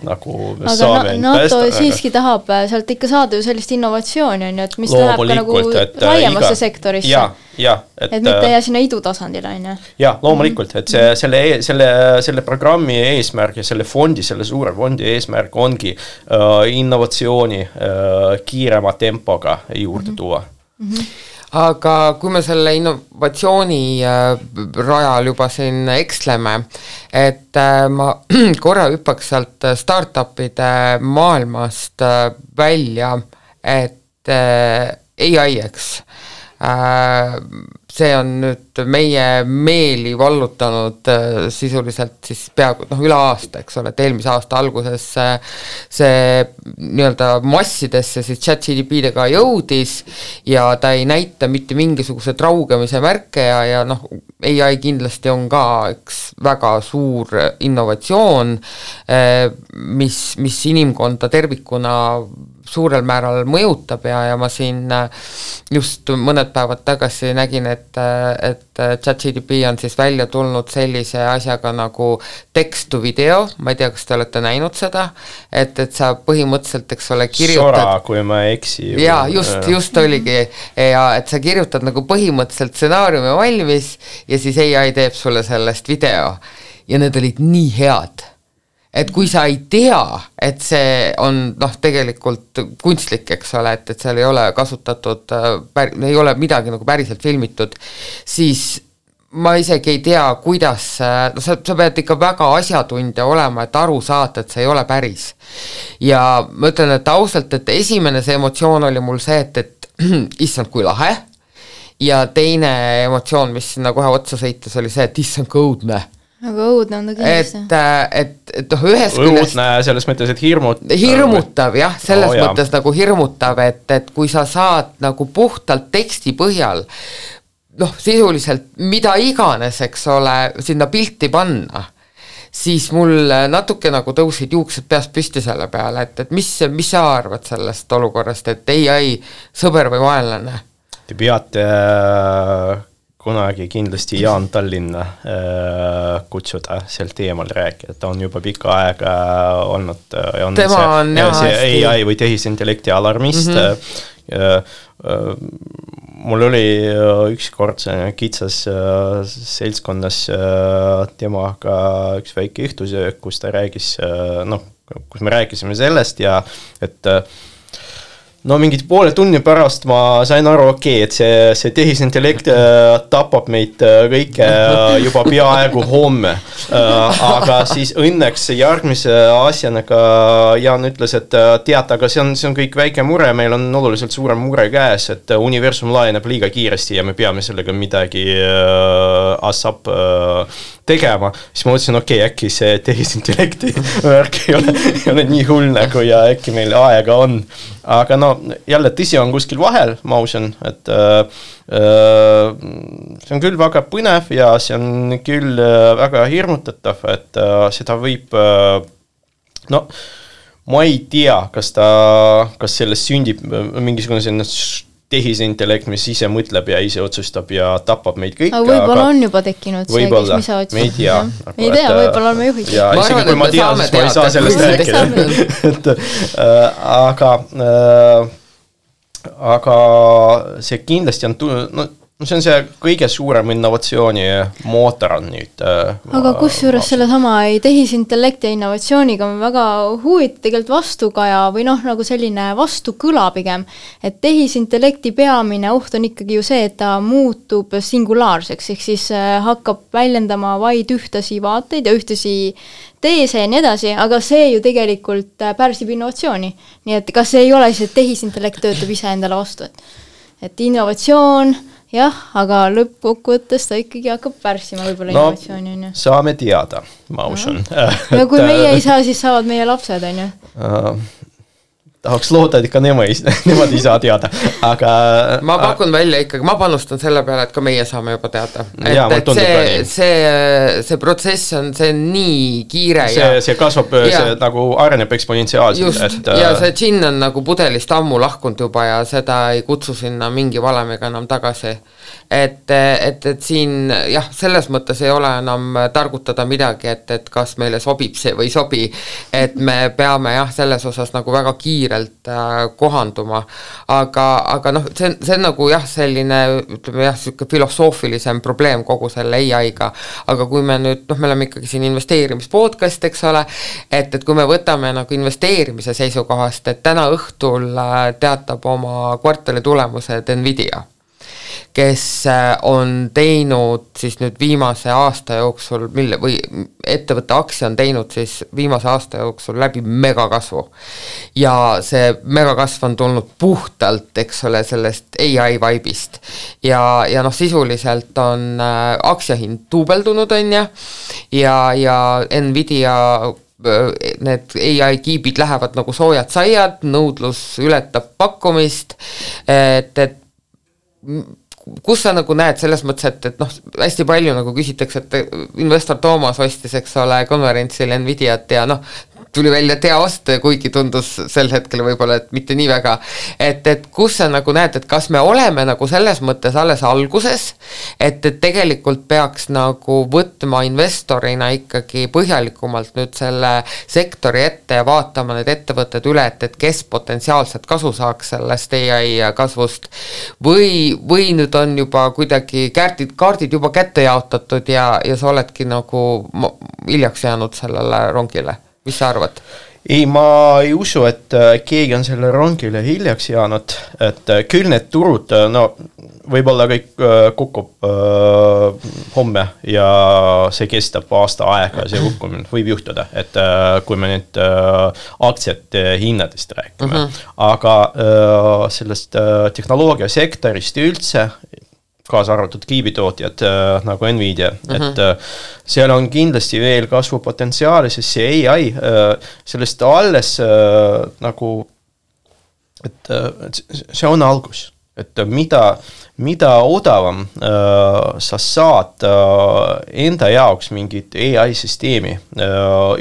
nagu saame NATO siiski tahab sealt ikka saada ju sellist innovatsiooni, on ju, et mis läheb ka nagu laiemasse sektorisse. Et mitte jää sinna idutasandile, on ju. Jah, loomulikult, et selle programmi eesmärk ja selle suure fondi eesmärk ongi innovatsiooni kiirema tempoga juurde tuua. Aga kui me selle innovatsiooni rajal juba siin eksleme, et ma korra hüppaks sealt startupide maailmast välja, et AI, eks. See on nüüd meie meeli vallutanud sisuliselt siis peaaegu üle aasta, eks ole, et eelmise aasta alguses see nii-öelda massidesse siis ChatGPT-dega jõudis ja ta ei näita mitte mingisuguse traugemise märke ja AI kindlasti on ka üks väga suur innovatsioon, mis inimkonda tervikuna suurel määral mõjutab ja ma siin just mõned päevad tagasi nägin, et ChatGPT on siis välja tulnud sellise asjaga nagu text to video, ma ei tea, kas te olete näinud seda, et sa põhimõtteliselt, eks ole, kirjutad... Sora, kui ma eksi. Jaa, just oligi, ja et sa kirjutad nagu põhimõtteliselt stsenaariumi valmis ja siis AI teeb sulle sellest video ja need olid nii head. Et kui sa ei tea, et see on tegelikult kunstlik, eks ole, et seal ei ole kasutatud, ei ole midagi nagu päriselt filmitud, siis ma isegi ei tea, kuidas, sa pead ikka väga asjatundja olema, et aru saada, et see ei ole päris. Ja ma ütlen, et ausalt, et esimene see emotsioon oli mul see, et issand kui lahe, ja teine emotsioon, mis sinna kohe otsa sõites, oli see, et issand kui õudne. Aga õudne on ta kindlasti. Et ühes küljest... Õudne selles mõttes, et hirmutav, jah, selles mõttes nagu hirmutav, et kui sa saad nagu puhtalt teksti põhjal, sisuliselt mida iganes, eks ole, sinna pilti panna, siis mul natuke nagu tõusid juuksed peast püsti selle peale, et mis sa arvad sellest olukorrast, et AI sõber või vaenlane? Te peate... kunagi kindlasti Jaan Tallinna kutsuda sel teemal rääkida. Ta on juba pikka aega olnud tema on see AI või tehisintellekti alarmist. Mul oli üks kord kitsas seltskonnas temaga üks väike õhtusöök, kus ta räägis, kus me rääkisime sellest ja et mingid poole tunni pärast ma sain aru, et see tehisintellekt tapab meid kõike juba peaaegu homme. Aga siis õnneks järgmise asjana ka Jaan ütles, et tead, aga see on kõik väike mure, meil on oluliselt suurem mure käes, et universum laieneb liiga kiiresti ja me peame sellega midagi ASAP tegema. Siis ma mõtlesin, äkki see tehisintellekti värk ei ole nii hull nagu ja äkki meil aega on. Aga jälle tõsi on kuskil vahel, ma usun, et see on küll väga põnev ja see on küll väga hirmutatav, et seda võib, ma ei tea, kas sellest sündib mingisugune tehisintellekt, mis ise mõtleb ja ise otsustab ja tapab meid kõik. Aga võib-olla on juba tekkinud see, kes mis sa otsustab. Me ei tea. Ei tea, võib-olla oleme juhid. Ja isegi kui ma tean, siis ma ei saa sellest rääkida. Aga see kindlasti on... see on see kõige suurem innovatsiooni mootor on nüüd. Aga kusjuures selle sama tehisintellekti ja innovatsiooniga on väga huvitav tegelikult vastukaja või nagu selline vastukõla pigem, et tehisintellekti peamine oht on ikkagi ju see, et ta muutub singulaarseks, ehk siis hakkab väljendama vaid ühtasi vaateid ja ühtasi teese ja nii edasi, aga see ju tegelikult pärsib innovatsiooni. Nii et kas see ei ole siis, et tehisintellekt töötab ise endale vastu, et innovatsioon jah, aga lõppkokkuvõttes ta ikkagi hakkab pärssima võib-olla innovatsiooni, on ju. Saame teada, ma usun. Ja kui meie ei saa, siis saavad meie lapsed, on ju. Tahaks loota, et ikka nemad ei saa teada, aga ma pakun välja ikkagi, ma panustan selle peale, et ka meie saame juba teada. See protsess on, see nii kiire see kasvab, see nagu areneb eksponentsiaalselt. Just, ja see džinn on nagu pudelist ammu lahkunud juba ja seda ei kutsu sinna mingi valemiga enam tagasi. Et siin jah, selles mõttes ei ole enam targutada midagi, et kas meile sobib see või sobi, et me peame jah, selles osas nagu väga kiirelt kohanduma, aga noh, see on nagu jah, selline, ütleme jah, selline filosoofilisem probleem kogu selle AI-ga, aga kui me nüüd, noh, me oleme ikkagi siin investeerimispodcast, eks ole, et kui me võtame nagu investeerimise seisukohast, et täna õhtul teatab oma kvartali tulemused Nvidia, kes on teinud siis nüüd viimase aasta jooksul, või ettevõtte aktsia on teinud siis viimase aasta jooksul läbi megakasvu. Ja see megakasv on tulnud puhtalt, eks ole, sellest AI vibe'ist. Ja noh, sisuliselt on aktsiahind duubeldunud, on ja Nvidia need AI kiibid lähevad nagu soojad saiad, nõudlus ületab pakkumist, et kus sa nagu näed selles mõttes, et noh, hästi palju nagu küsitakse, et investor Toomas ostis, eks ole, konverentsil Nvidiat ja noh, tuli välja tea osta, kuigi tundus sel hetkel võib-olla, et mitte nii väga, et kus sa nagu näed, et kas me oleme nagu selles mõttes alles alguses, et tegelikult peaks nagu võtma investorina ikkagi põhjalikumalt nüüd selle sektori ette ja vaatama need ettevõtted üle, et kes potentsiaalselt kasu saaks sellest AI kasvust või nüüd on juba kuidagi kaardid juba kätte jaotatud ja sa oledki nagu hiljaks jäänud sellele rongile. Mis sa arvad? Ei, ma ei usu, et keegi on selle rongile hiljaks jäänud, et küll need turud, no võib-olla kõik kukub homme ja see kestab aasta aega, see kukkumine võib juhtuda, et kui me nüüd aktsiate hinnadest räägime, aga sellest tehnoloogiasektorist üldse, kaasa arvatud kiibitootjad nagu Nvidia, et seal on kindlasti veel kasvupotentsiaali, sest see AI, sellest alles nagu, et see on algus, et mida odavam sa saad enda jaoks mingit AI-süsteemi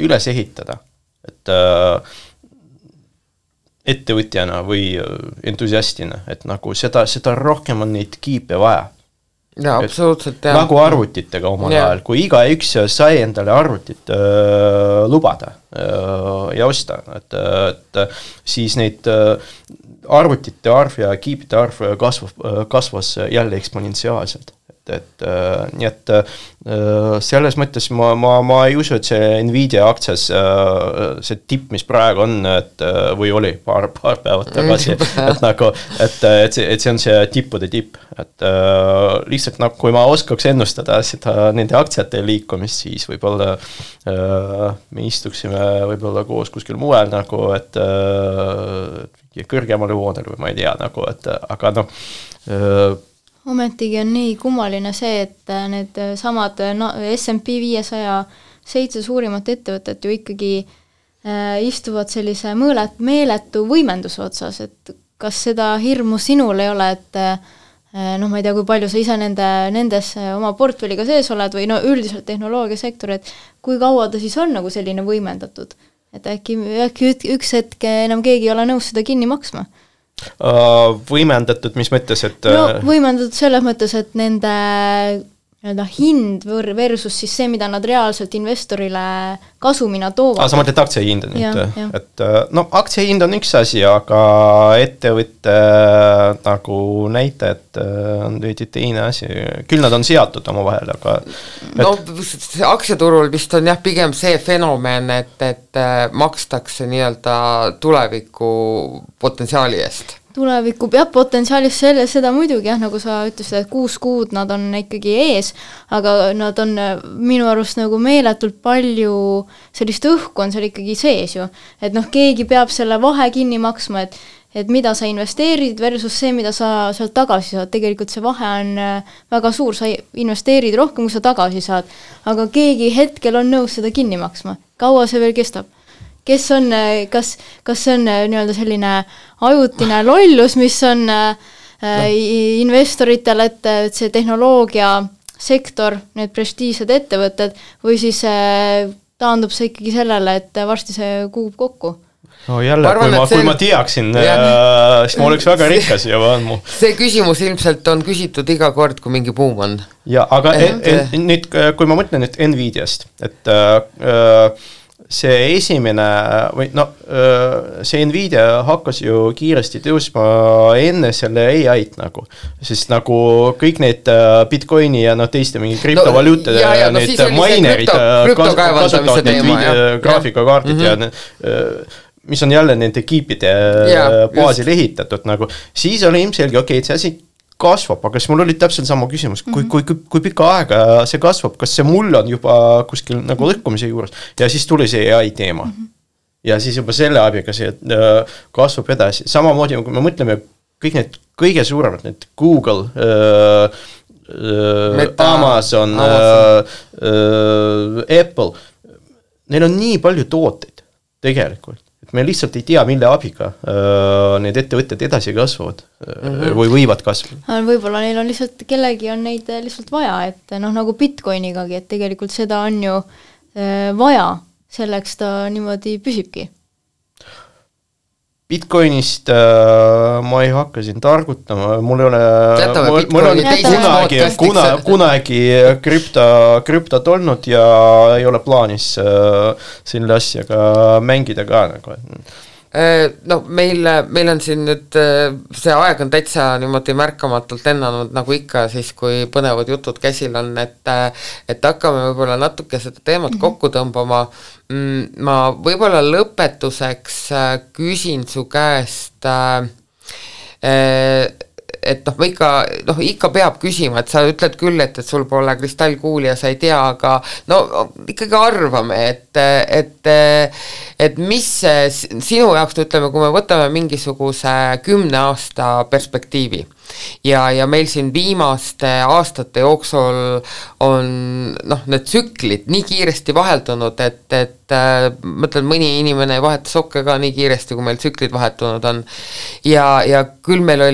üles ehitada, et ettevõtjana või entusiastina, et nagu seda rohkem on neid kiipe vaja. Ja, absoluutselt. Ja. Nagu arvutitega omal ajal, kui iga üks sai endale arvutit lubada ja osta, et siis neid arvutite arv ja kiipide arv kasvas jälle eksponentsiaalselt. Nii et selles mõttes ma ei usu, et see Nvidia aktsias see tipp, mis praegu on, või oli paar päevad tagasi, et see on see tippude tipp, et lihtsalt nagu kui ma oskaks ennustada seda nende aktsiate liikumist, siis võib-olla me istuksime võib-olla koos kuskil muel nagu, et kõrgemale voodel või ma ei tea nagu, et aga noh ometigi on nii kummaline see, et need samad S&P 500 7 suurimat ettevõtet ju ikkagi istuvad sellise meeletu võimenduse otsas, et kas seda hirmu sinul ei ole, et noh, ma ei tea, kui palju sa ise nendes oma portfelliga sees oled või no üldiselt tehnoloogiasektor, et kui kaua ta siis on nagu selline võimendatud, et äkki üks hetk enam keegi ei ole nõus seda kinni maksma? Võimendatud, mis mõttes, et no võimendatud selles mõttes, et nende hind versus siis see, mida nad reaalselt investorile kasumina toovad. Sa mõtled aktsiahind nüüd, et no aktsiahind on üks asi, aga ettevõtte nagu näitajad on veidi teine asi. Küll nad on seatud oma vahel, aga no aktsiaturul vist on jah pigem see fenomen, et makstakse nii-öelda tuleviku potentsiaali eest. Tuleviku peab potentsiaalis seda muidugi jah, nagu sa ütlesid, et 6 kuud nad on ikkagi ees, aga nad on minu arust nagu meeletult palju sellist õhku on seal ikkagi sees ju, et noh, keegi peab selle vahe kinni maksma, et mida sa investeerid versus see, mida sa sealt tagasi saad, tegelikult see vahe on väga suur, sa investeerid rohkem, kui sa tagasi saad, aga keegi hetkel on nõus seda kinni maksma, kaua see veel kestab? Kes on, kas see on nii-öelda selline ajutine lollus, mis on investoritel, et see tehnoloogia sektor, need prestiižsed ettevõtted või siis taandub see ikkagi sellele, et varsti see kuub kokku? No jälle, kui ma teaksin, siis ma oleks väga rikas ja vaadmu. See küsimus ilmselt on küsitud iga kord, kui mingi buum on. Ja, aga nüüd, kui ma mõtlen nüüd Nvidiast, et see esimene, või see Nvidia hakkas ju kiiresti tõusma enne selle AI-t nagu, sest nagu kõik need Bitcoini ja teiste mingi kriptovaluutade ja need minerid kasutavad need graafikakaardid ja mis on jälle nende kiipide baasil ehitatud nagu, siis oli ilmselge, okei, et see asi kasvab, aga siis mul oli täpselt sama küsimus, kui pika aega see kasvab, kas see mull on juba kuskil nagu lõhkumise juures ja siis tuli see AI teema. Ja siis juba selle abiga see kasvab edasi. Samamoodi, kui me mõtleme kõik need kõige suuremad, need Google, Amazon, Apple, neil on nii palju tooteid tegelikult. Me lihtsalt ei tea, mille abiga need ettevõtted edasi kasvavad või võivad kasvada. Võib-olla neil on lihtsalt, kellegi on neid lihtsalt vaja, et nagu Bitcoinigagi, et tegelikult seda on ju vaja, selleks ta niimoodi püsibki. Bitcoinist ma ei hakka siin targutama, mul on kunagi krüptot olnud ja ei ole plaanis selle asjaga mängida ka nagu. No meil on siin nüüd, see aeg on täitsa niimoodi märkamatult lennanud nagu ikka siis, kui põnevad jutud käsil on, et hakkame võib-olla natuke seda teemat kokku tõmbama. Ma võib-olla lõpetuseks küsin su käest, et ma ikka peab küsima, et sa ütled küll, et sul pole kristallkuuli ja sa ei tea, aga ikkagi arvame, et mis sinu jaoks, ütleme, kui me võtame mingisuguse 10 aasta perspektiivi ja meil siin viimaste aastate jooksul on need tsüklid nii kiiresti vaheldunud, et mõtlen, mõni inimene ei vaheta sokke ka nii kiiresti, kui meil tsüklid vahetunud on ja küll meil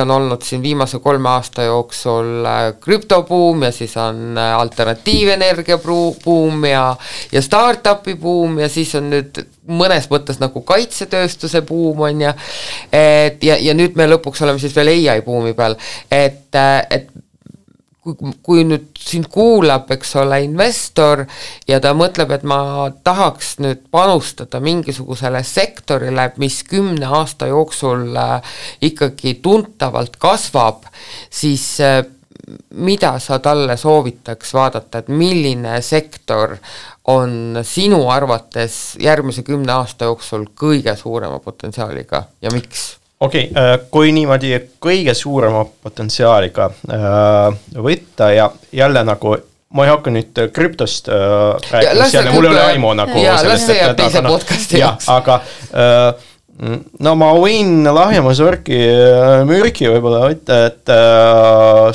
on olnud siin viimase 3 aasta jooksul krüptobuum ja siis on alternatiivenergia buum ja startupi buum ja siis on nüüd mõnes mõttes nagu kaitsetööstuse buum on ja nüüd me lõpuks oleme siis veel AI buumi peal, et kui nüüd sind kuulab, eks ole, investor ja ta mõtleb, et ma tahaks nüüd panustada mingisugusele sektorile, mis 10 aasta jooksul ikkagi tuntavalt kasvab, siis mida sa talle soovitaks vaadata, et milline sektor on sinu arvates järgmise 10 aasta jooksul kõige suurema potentsiaaliga ja miks? Okei, kui niimoodi kõige suurema potentsiaaliga võtta ja jälle nagu ma ei hakka nüüd krüptost rääkima, mul ei ole aimu nagu sellest, et teise podcasti jaoks. Aga ma võin lahjemas mürki võib-olla võtta, et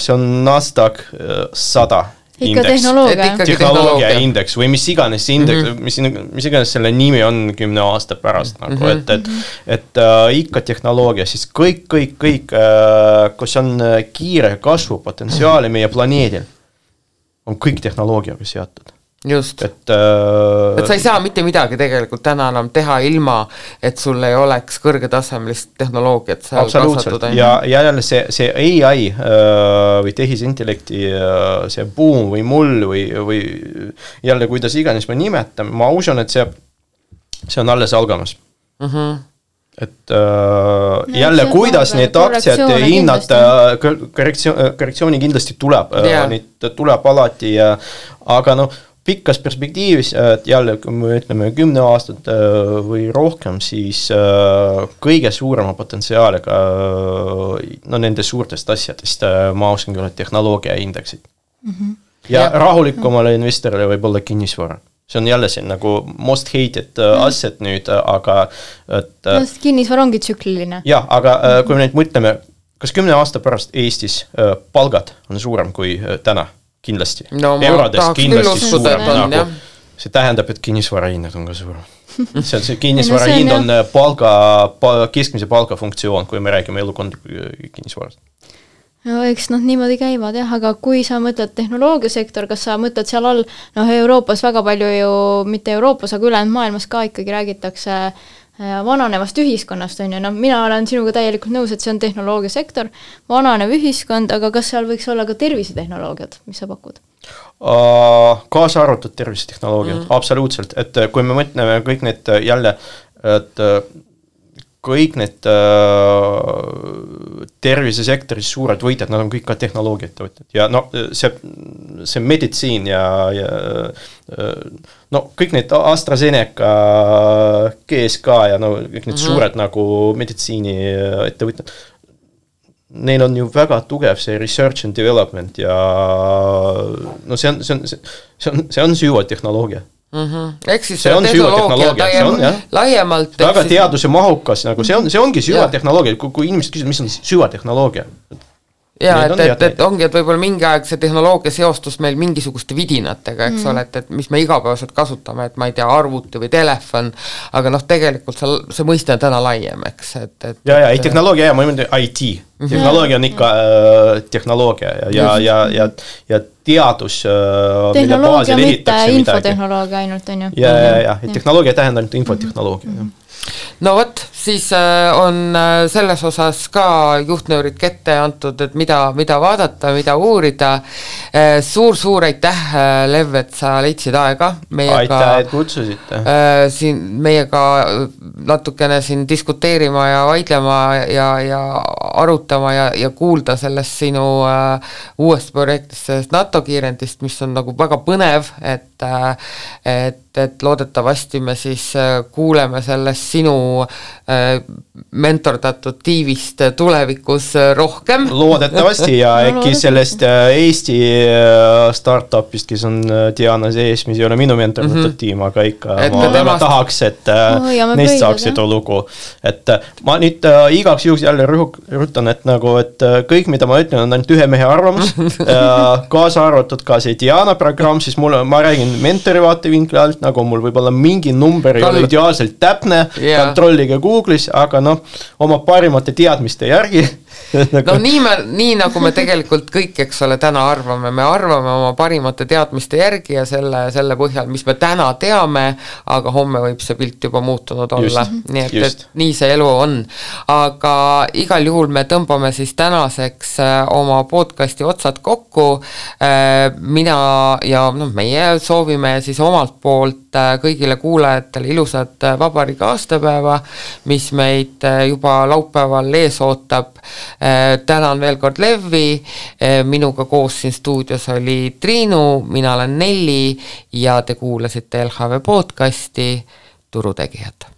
see on Nasdaq 100 indeks. Tehnoloogia indeks või mis iganes indeks, mis iganes selle nimi on 10 aasta pärast nagu, et ikka tehnoloogia, siis kõik, kus on kiire kasvu potentsiaali meie planeedil, on kõik tehnoloogiaga seatud. Just, et sa ei saa mitte midagi tegelikult täna enam teha ilma, et sul ei oleks kõrgetasemelist tehnoloogiat seal absoluutselt, ja jälle see AI või tehisintellekti see boom või mull või jälle kuidas iganes me nimetame, ma usun, et see on alles algamas. Et jälle, kuidas need aktsiad hinnad, korrektsiooni kindlasti tuleb, neid tuleb alati, aga pikkas perspektiivis, et jälle, kui me ütleme 10 aastat või rohkem, siis kõige suurema potentsiaaliga nende suurtest asjadest ma oskan küll tehnoloogia indeksid. Ja rahulikumale investorile võib olla kinnisvara. see on jälle siin nagu most hated asset nüüd, aga et kinnisvara ongi tsükliline. Jah, aga kui me nüüd mõtleme, kas 10 aasta pärast Eestis palgad on suurem kui täna? Kindlasti. No, eurodes kindlasti suurem. Nagu, see tähendab, et kinnisvarahinnad on ka suurem. See kinnisvarahind on keskmise palga funktsioon, kui me räägime elukondliku kinnisvarast. No eks niimoodi käivad jah, aga kui sa mõtled tehnoloogiasektor, kas sa mõtled seal all, Euroopas väga palju ju, mitte Euroopas, aga ülejäänud maailmas ka ikkagi räägitakse vananevast ühiskonnast, on ju, mina olen sinuga täielikult nõus, et see on tehnoloogiasektor, vananev ühiskond, aga kas seal võiks olla ka tervisetehnoloogiad, mis sa pakud? Kaasa arvatud tervisetehnoloogiad, absoluutselt, et kui me mõtleme kõik need jälle, et kõik need tervisesektoris suured võitjad, nad on kõik ka tehnoloogiat võtnud ja see meditsiin ja kõik need AstraZeneca, GSK ja kõik need suured nagu meditsiini ettevõtjad, neil on ju väga tugev see research and development ja see on süva tehnoloogia. Ehk siis see on tehnoloogia laiemalt. Väga teaduse mahukas, nagu see ongi süvatehnoloogia, kui inimesed küsivad, mis on süvatehnoloogia. Ja, et ongi, et võib-olla mingi aeg see tehnoloogia seostus meil mingisuguste vidinatega, eks ole, et mis me igapäevaselt kasutame, et ma ei tea, arvuti või telefon, aga tegelikult see mõiste on täna laiem, eks. Ei tehnoloogia ja ma mõtlen IT. Tehnoloogia on ikka tehnoloogia ja teadus, mille baasil ehitatakse midagi. Infotehnoloogia ainult on ju. Ja tehnoloogia tähendab ainult infotehnoloogia. No võt, siis on selles osas ka juhtnöörid kette antud, et mida vaadata, mida uurida. Suur aitäh, Lev, et sa leidsid aega. Aitäh, et kutsusite. Siin meiega natukene siin diskuteerima ja vaidlema ja arutama ja kuulda sellest sinu uuest projektist, sellest NATO kiirendist, mis on nagu väga põnev, et loodetavasti me siis kuuleme sellest sinu mentordatud tiivist tulevikus rohkem. Loodetavasti ja äkki sellest Eesti startupist, kes on Diana sees, mis ei ole minu mentordatud tiim, aga ikka ma väga tahaks, et neist saaks seda lugu. Et ma nüüd igaks juhuks jälle rõhutan, et kõik, mida ma ütlen, on ainult ühe mehe arvamus, kaasa arvatud ka see Diana programm, siis ma räägin mentori vaatevinkli alt, nagu mul võib olla mingi number ei ole ideaalselt täpne, kontrollige Google'is, aga oma parimate teadmiste järgi. Nii nagu me tegelikult kõik, eks ole, täna arvame, me arvame oma parimate teadmiste järgi ja selle põhjal, mis me täna teame, aga homme võib see pilt juba muutunud olla. Nii et nii see elu on. Aga igal juhul me tõmbame siis tänaseks oma podcasti otsad kokku. Mina ja meie soovime siis omalt poolt kõigile kuulajatele ilusat vabariigi aastapäeva, mis meid juba laupäeval ees ootab. Tänan veel kord Levi, minuga koos siin stuudios oli Triinu, mina olen Nelli ja te kuulasite LHV podcasti Turutegijad.